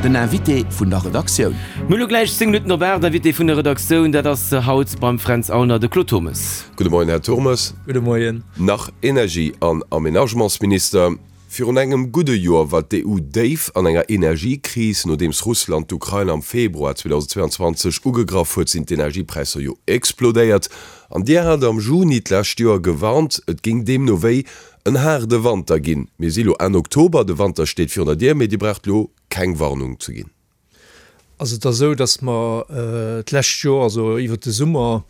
Den Invité vun der Redaktioun. Mir hu lo gläich 10 Minutten op 8. Invité vun der Redaktioun, dat ass haut beim Fränz Aulner de Claude Turmes. Gudde Moien, Här Turmes. Gudde Moien. Nach Energie an Aménagementsminister. Virun engem gudde Joer war d'EU déif an enger Energiekris. Nodeems Russland d'Ukrain am Februar 2022 ugegraff huet, sinn d'Energiepräisser jo explodéiert. An Dir hat am Juni d'lescht Joer gewarnt, et géing deemno wéi en haarde Wanter ginn. Mir si lo Enn Oktober, de Wanter steet virun der Dier, mee Dir braucht lo keng Warnung ze ginn. Also et ass esou, datt mer d'lescht Joer, also iwwert de Summer,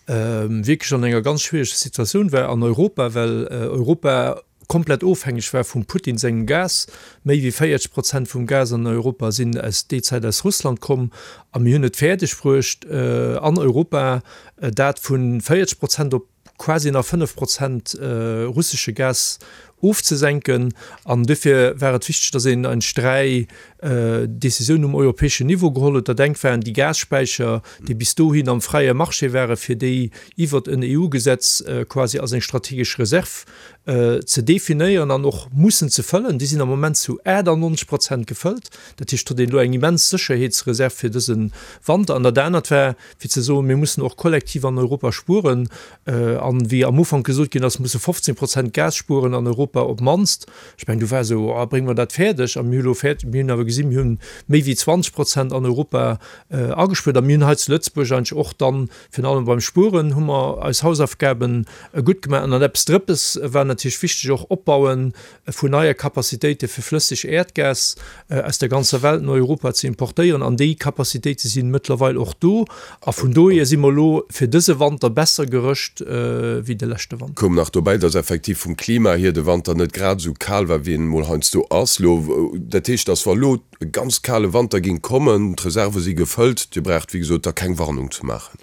wierklech an enger ganz schwiereger Situatioun war an Europa, well Europa komplett ofhängeg war vum Putin sengem Gas. Méi wéi 40 Prozent vum Gas an Europa sinn aus déi Zäit aus Russland komm. A mir hunn et fäerdeg bruecht an Europa dat vu 40 Prozent op quasi nach 5 Prozent russesche Gas ofzesenken. An duerfir war et wichteg, datt een eigentlech 3 Décisiounen um europäeschen Niveau geholl huet. Dat engt waren déi Gasspäicher, déi bis dohin am fräie Marché waren, fir déi iwwert en EU-Gesetz quasi als eng strategesch Reserv ze definéieren an och mussen ze fëllen. Déi sinn am Moment zu 98 Prozent gefëllt. Dat heescht, et huet een elo eng immens Sécherheetsreserv fir dëse Wanter. An dat anert war, fir ze soen, mir mussen och kollektiv an Europa spueren, an wéi am Ufank gesot ginn ass, musse 15 Prozent Gas spueren an Europa op d'mannst. Ech mengen, do war esou, oh, brénge mer dat fäerdeg? A mir hu lo fäerdeg, mir hunn awer gesinn, mir hunn méi wéi 20 Prozent an Europa agespuert. A mir hunn hei zu Lëtzebuerg eigentlech och dann, virun allem beim Spueren, hu mer eis Hausaufgaben gutt gemaach. An dann eppes Drëppes war natierlech wichteg, och Opbauen vun neie Capacitéite fir flësseg Äerdgas aus der ganzer Welt no Europa ze importéieren. An déi Capacitéite si mëttlerweil och do. A vun dohier si mer elo fir dëse Wanter besser gerëscht wéi de leschte Wanter. Koum nach dobäi, dass effektiv vum Klima hier de Wanter net grad esou kal war, wéi en emol heiansdo ass elo. Dat heescht, dass wa elo e ganz kale Wanter géing kommen, d'Reserve si gefëllt, Dir braucht, wéi gesot, da keng Warnung ze maachen.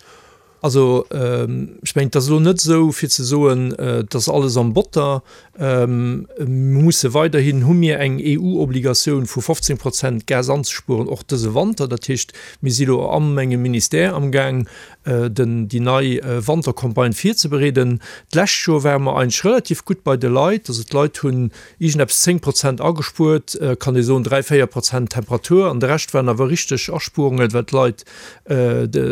Also, ech mengen, et ass elo net esou, fir ze soen, et ass alles am Botter. Mir musse weiderhin, hu mir eng EU-Obligatioun vu 15 Prozent Gas anzespueren, och dëse Wanter. Dat heescht, mir si elo a mengem Ministère amgaang, den, déi nei Wantercampagne virzebereeden. D'lescht Joer ware mer eigentlech relativ gutt bei de Leit. Also d'Leit hunn iergendeppes 10 Prozent agespuert, kann ee soen, 3, 4 Prozent Temperatur an de Rescht waren awer richteg Aspuerungen, well d'Leit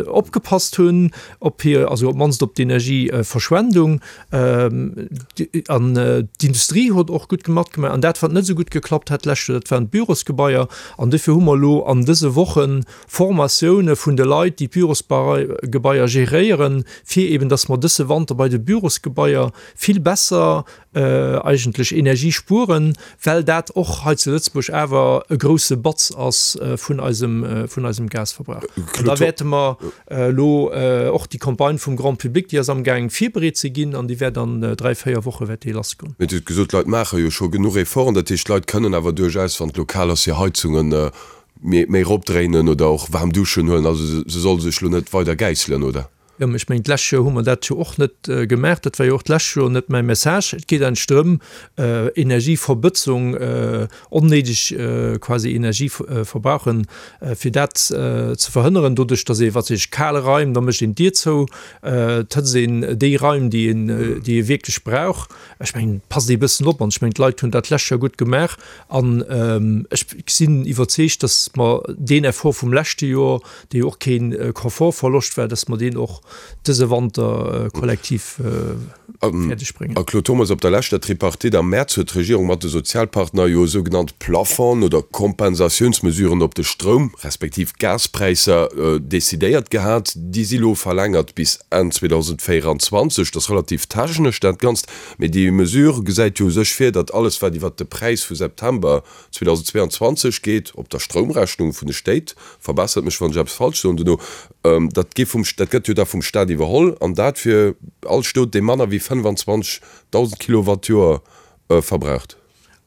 opgepasst hunn op hir, also op d'mannst op d'Energieverschwendung. An d'Industrie huet och gutt matgemaach. An dat, wat net esou gutt geklappt hat d'lescht Joer, dat waren d'Bürosgebaier. An dofir hu mer elo an dëse Woche Formatioune vun de Leit, déi d'Bürosgebaier geréieren, fir eben, dass mer dësse Wanter bei de Bürosgebaier vill besser eigentlech Energie spueren, well dat och hei zu Lëtzebuerg awer e grouse Batz ass vun eisem, vun eisem Gasverbrauch. An da wäerte mer elo och déi Campagne vum Grand public, déi ass amgaang virbereet ze ginn an déi wäert an 3, 4 Woche wäert déi lassgoen. Mee Dir hutt gesot, d'Leit maache jo scho genuch Efforten. Dat heescht, d'Leit kënnen awer duerchaus, wann et elo kal ass, hir Heizunge méi eropdréinen oder och waarm Duschen huelen. Also se solle sech elo net weider gäisselen, oder? Jo, mä ech mengen, d'lescht Joer hu mer dat jo och net gemaach. Dat war jo och d'lescht Joer net mäi Message. Et geet eigentlech drëm, Energieverbëtzung, onnéideg quasi Energie verbrauchen, fir dat ze verhënneren, doduerch datt ee, wat weess ech, kal Raim, da mécht een d'Dier zou, et hëtzt een déi Raim, déi een, déi ee wierklech brauch. Ech mengen, passt ee bëssen op. An ech mengen, d'Leit hunn dat d'lescht Joer gutt gemaach. An ech sinn iwwerzeegt, datt mer deen Effort vum leschte Joer, dee jo och kee Komfortverloscht war, dass mer deen och dëse Wanter kollektiv fäerdeg bréngen. A Claude Turmes, op der leschter Tripartite am Mäerz huet d'Regierung mat de Sozialpartner jo sougenannt Plafonds oder Kompensatiounsmesuren op de Stroum respektiv Gaspräisser decidéiert gehat. Déi si lo verlängert bis Enn 2024. Dat ass relativ technesch dat Ganzt, mee déi Mesure gesäit jo u sech vir, datt alles wat iwwert de Präis vu September 2022 geet op der Stroumrechnung vun de Stéit, verbessert mech wann ech eppes falsch soen dono, dat gi vum, dat gëtt jo da vum Staat iwwerholl an dat fir all Stot dee manner wéi 25.000 Kilowatt d'Joer verbraucht.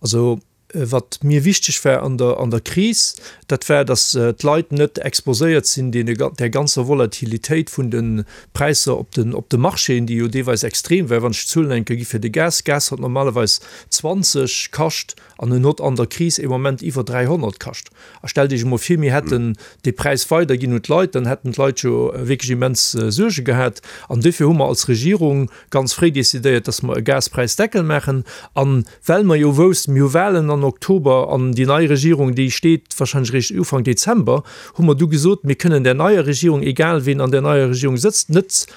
Also wat mir wichteg war an der an der Kris, dat war, datt d'Leit net exposéiert sinn deene där ganzer Volatilitéit vun de Präisser op den op de Marchéen, déi jo deelweis extrem war. Wann ech d'Zuelen eng Kéier gi fir de Gas, Gas hat normalerweis 20 kascht, An en hott an der Kris ee Moment iwwer 300 kascht. A stellt Iech emol vir, mir hätten dee Präis weiderginn un d'Leit, dann hätten d'Leit jo wierklech immens Suerge gehat. An duerfir hu mer als Regierung ganz fréi decidéiert, dass mer e Gaspräisdeckel maachen. A well mer jo woussten, mir hu Wahlen an. an Oktober an déi nei Regierung, déi steet wahrscheinlech eréischt Ufank Dezember, hu mer du gesot, mir kënnen där neier Regierung, egal ween an där neier Regierung sëtzt, net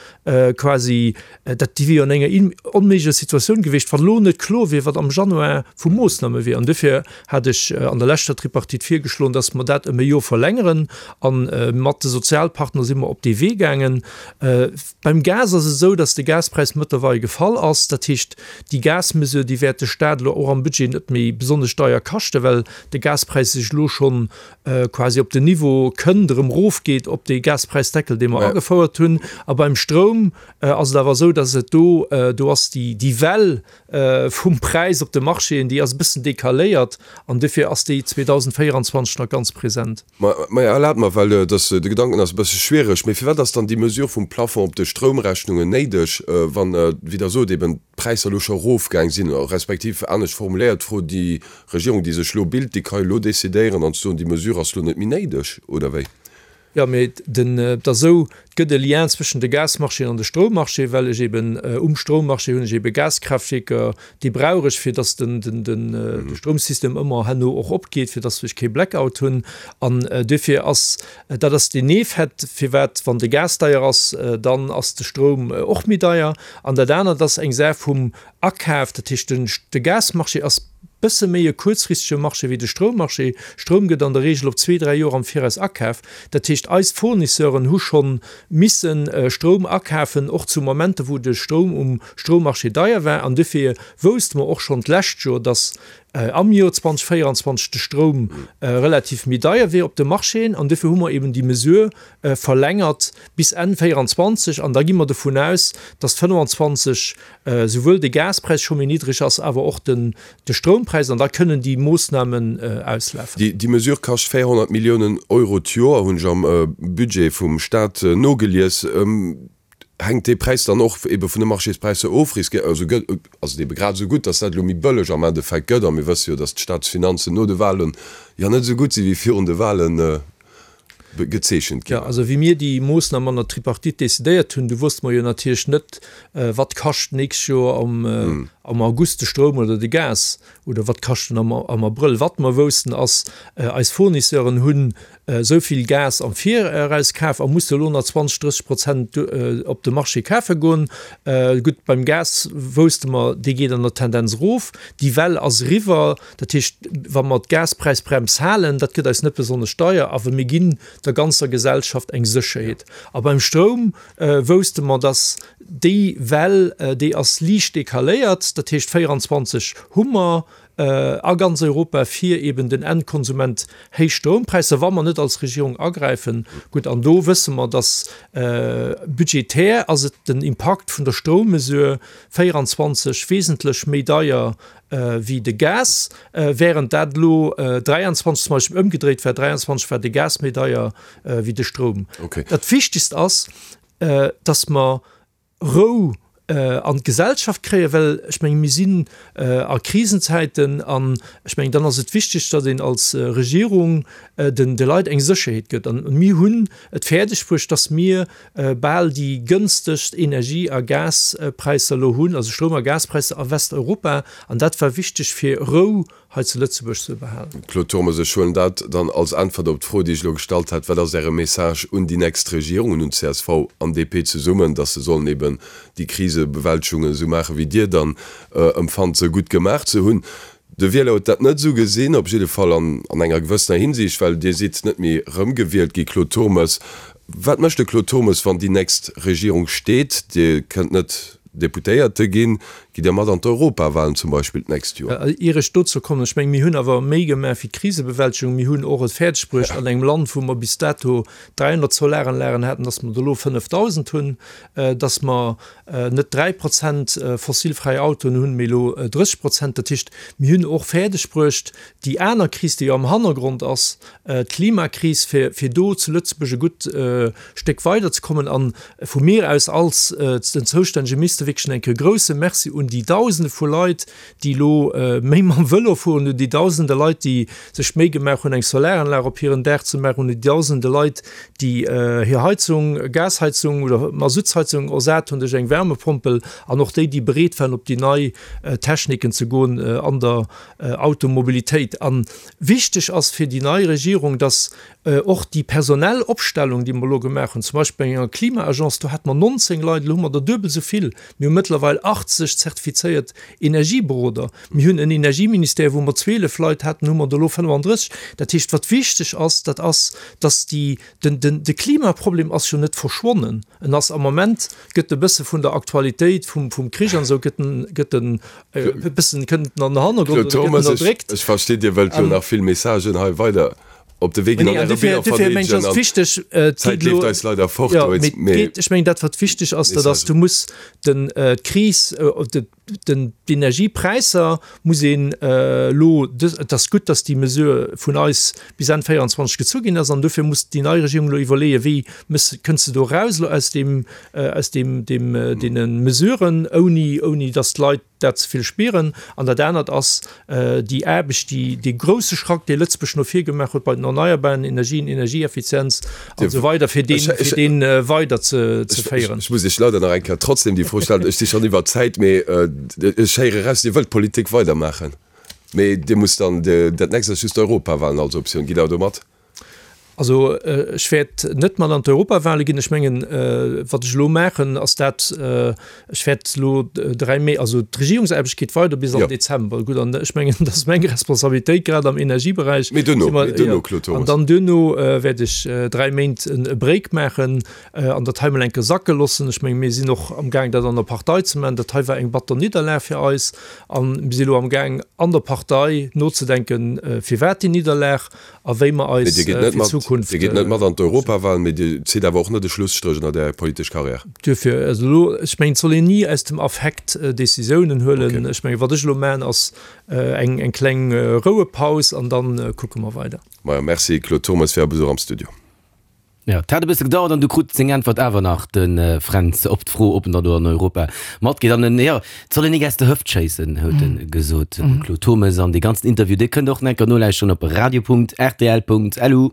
quasi, dat déi wier jo an enger onméiglecher Situatioun gewiescht, wann elo net kloer wier, wat am Januar vu Moossname wier. An duerfir hat ech an der leschter Tripartite virgeschloen, dass mer dat ëm e Joer verlängeren. A mat de Sozialpartner si mer op dee Wee gaangen. Beim Gas ass et esou, dass de Gaspräis mëttlerweil gefall ass. Dat heescht, déi Gasmesure, déi wäert de Staat elo och am Budget net méi besonnesch deier kaschten, well de Gaspräis sech elo schonn quasi op den Niveau kënnt, erëm erofgeet op dee Gaspräisdeckel, dee mer agefouert hunn. A beim Stroum ass et awer esou, dass et do, do ass déi, déi Well vum Präis op de Marchéen, déi ass e bëssen decaléiert an dofir ass déi 2024 nach ganz present. Mä erlaabt mer, well dass de Gedanken ass e bësse schwiereg, mee firwat ass dann déi Mesure vum Plafond op de Stroumrechnungen néideg, wann, wéi Der sot, eben d'Präisser elo scho erofgaang sinn, respektiv anescht formuléiert d'Fro, déi Regierung, déi sech elo bilt, déi ka jo elo decidéieren an ze soen, déi Mesure ass elo net méi néideg, oder wéi? Jo, mee den, et ass esou, et gëtt e Lien zwëschen de Gasmarchéen an de Stroummarché, well ech eben um Stroummarché hunn ech ebe Gaskraaftwierker, déi brauch ech, fir datt den, den, den, de Stroumsystem ëmmer herno och opgeet, fir datt ech kee Blackout hunn. An duerfir ass, dat ass deen Effet, firwat, wann de Gas deier ass, dann ass de Stroum och méi deier. An dat anert ass eng Saach vum Akaf, dat heescht den, de Gasmarché ass, Bësse méi e kuerzfristege Marché wéi de Stroummarché. Stroum gëtt an der Reegel op zwee, dräi Joer am Viraus akaf. Dat heescht, eis Fournisseuren hu schonn misse Stroum akafen, och zu Momenter, wou de Stroum um Stroummarché deier war. An dofir wousste mer och schonn d'lescht Joer, datt am Joer 2024 de Stroum relativ méi deier wier op de Marchéen. An dofir hu mer eben déi Mesure verlängert bis Enn 24. An da gi mer dovun aus, datt 25 souwuel de Gaspräis scho méi niddreg ass, awer och den de Stroumpräis, an da kënnen déi Moossnamen auslafen. Déi Mesure kascht 400 Milliounen Euro d'Joer, hunn ech am Budget vum Staat nogelies. Hänkt dee Präis dann och ebe vun de Marchéspräisser of? Also gëtt, ass et ebe grad esou gutt, datt dat elo méi bëlleg am Endeffekt gëtt? A mir wësse jo, datt d'Staatsfinanzen no de Wahlen jo net esou gutt si wéi virun de Wahlen. Gezeechent ginn. Jo, also wéi mir déi Moossnam an der Tripartite decidéiert hunn, du wosste mer jo natierlech net, wat kascht d'nächst Joer am August de Stroum oder de Gas oder wat kascht en am Abrëll. Wat mer woussten ass, eis Fournisseuren hunn esou vill Gas am Viraus kaf a musse elo nach 20, 30 Prozent op de Marché kafe goen. Gutt, beim Gas wousste mer, dee geet an der Tendenz erof. Déi Well ass eriwwer. Dat heescht, wa mer d'Gaspräisbrems halen, dat gëtt eis net besonnesch deier, awer mir ginn der ganzer Gesellschaft eng Sécherheet. A beim Stroum wousste mer, dass déi Well, déi ass liicht decaléiert, dat heescht 24 hu mer a ganz Europa fir eben den Endkonsument héich Stroumpräisser, wa mer net als Regierung agräifen. Gutt, an do wësse mer, dass budgetär ass et den Impakt vun der Stroummesure 24 wesentlech méi deier wéi de Gas, während dat elo 23 zum Beispill ëmgedréit war, 23 war de Gas méi deier wéi de Stroum. Dat Wichtigst ass, dass mer Rou an d'Gesellschaft kréien, well ech mengen, mir sinn a Krisenzäiten an ech mengen, dann ass et wichteg, datt een als Regierung den de Leit eng Sécherheet gëtt. An mir hunn et fäerdeg bruecht, dass mir bal déi gënstegst Energie a Gaspräisser elo hunn, also Stroum a Gaspräisser a Westeuropa, an dat war wichteg fir Rou hei zu Lëtzebuerg ze behalen. Claude Turmes, Ech huelen dat dann als Äntwert op d'Fro, déi ech elo gestallt hat, Wat ass Äre Message un déi nächst Regierungen, un csv an DP zesummen, datt se sollen eben déi Krisebewältegung esou maachen, wéi Dir dann empfannt, se gutt gemaach ze hunn? De Wieler huet dat net esou gesinn, op jidde Fall an enger gewëssener Hinsicht, well Dir sidd net méi erëmgewielt gi, Claude Turmes. Wat mécht de Claude Turmes, wann déi nächst Regierung steet? Dir kënnt net Deputéierte ginn. Gitt Dir mat an d'Europawahlen zum Beispill d'nächst Joer? Ier ech dozou kommen, ech mengen, mir hunn awer méi gemaach wéi d'Krisebewältegung. Mir hunn och et fäerdeg bruecht an engem Land, wou mer bis dato 300 Solaranlagen haten, dass mer der elo 5.000 hunn, dass mer net 3 Prozent fossilfräi Autoen hunn, mee elo 30 Prozent. Dat heescht, mir hunn och fäerdeg bruecht, déi aner Kris, déi jo am Hannergrond ass, d'Klimakris, fir, fir do zu Lëtzebuerg e gutt Stéck weiderzekommen. A vu mir aus als den zoustännege Minister wierklech eng Kéier e grouse Merci un. un déi Dausende vu Leit, déi elo méi mam Vëlo fueren, un déi Dausende Leit, déi sech d'Méi gemaach hunn, eng Solaranlag op hiren Daach ze maachen, un déi Dausende Leit, déi hir Heizung, Gasheizung oder Masuttsheizung ersat hunn duerch eng Wärmepompel, an och déi, déi bereet waren, op déi nei Techniken ze goen an der Automobilitéit. A wichteg ass fir déi nei Regierung, dass Och déi personell Opstellung, déi mer elo gemaach hunn, zum Beispill bei enger Klima-Agence, do hate mer 19 Leit, elo hu mer der duebel esou vill. Mir hu mëttlerweil 80 zertifizéiert Energieberoder. Mir hunn en Energieministère, wou mer 12 Leit haten, hu mer der elo 35. Dat heescht, wat wichteg ass, dat ass, dass déi, den, den, de Klimaproblem ass jo net verschwonnen. En ass am Moment, gëtt e bësse vun der Aktualitéit vum, vum Krich an esou, gëtt en, gëtt en e bëssen, kënnt en an den Hannergrond oder gëtt en erdréckt. Ech verstinn, Dir wëllt jo nach vill Messagen hei weider op de Wee ginn an Äre Biller verdeedegen an d'Zäit leeft eis leider fort. Ech mengen dat wat wichteg ass, dat ass, du muss den d'Kris, den d'Energiepräisser muss een elo, et ass gutt, datt déi Mesure vun eis bis Enn 24 gezu ginn ass an dofir muss déi nei Regierung elo iwwerleeën, wéi mëss, kënns de do eraus elo aus deem, aus deem, deem, deene Mesuren, ouni, ouni datt d'Leit dat ze vill spieren. An dat anert ass déi Aarbecht, déi, dee grouse Schrack, dee Lëtzebuerg no vir gemaach huet bei den erneierbaren Energien, Energieeffizienz an esou weider, fir deen, fir deen weider ze, ze féieren. Ech muss Iech leider nach eng Kéier trotzdem déi Fro stellen. Ech si schonn iwwer d'Zäit, mee ech héiere eraus, Dir wëllt Politik weidermaachen, mee Dir musst dann, dat nächst ass just d'Europawahlen als Optioun. Gitt Der do mat? Also ech wäert net mat an d'Europawale ginn. Ech mengen, wat ech elo maachen, ass dat, ech wäert elo 3 Méi, also d'Regierungsaarbecht geet weider bis am Dezember. Gutt, an ech mengen, dat ass meng Responsabilitéit, grad am Energieberäich. Mee duerno, mee duerno, Claude Turmes. An dann duerno wäert ech 3 Méint e Break maachen an dat hei mol eng Kéier sacke loossen. Ech menge mir sinn och amgaang, dat an der Partei ze maachen. Dat hei war eng batter Nidderlag fir eis a mir si elo amgaang an der Partei nozedenken, firwat déi Nidderlag. a wéi mer eis fir d'Zukunft. Dir gitt net mat an d'Europawahlen, mee Dir zitt awer och net e Schlusstréch ënnert Är politesch Karriär. Duerfir, also elo, ech mengen, et soll een ni aus dem Affekt Décisiounen huelen. Ech mengen, wat ech elo maachen, ass eng eng kleng Rouepaus an da kucke mer weider. Majo, merci Claude Turmes fir Är Besuch am Studio. Jo, et hat e bësse gedauert an du krut seng Äntwert awer nach, de Fränz, op d'Fro, ob en dann do an Europa matgeet. An en, jo, et soll een nik aus der Hëft schéissen, huet e gesot, de Claude Turmes. An dee ganzen Interview, dee kënnt och nach eng Kéier nolauschteren op radio.rtl.lu.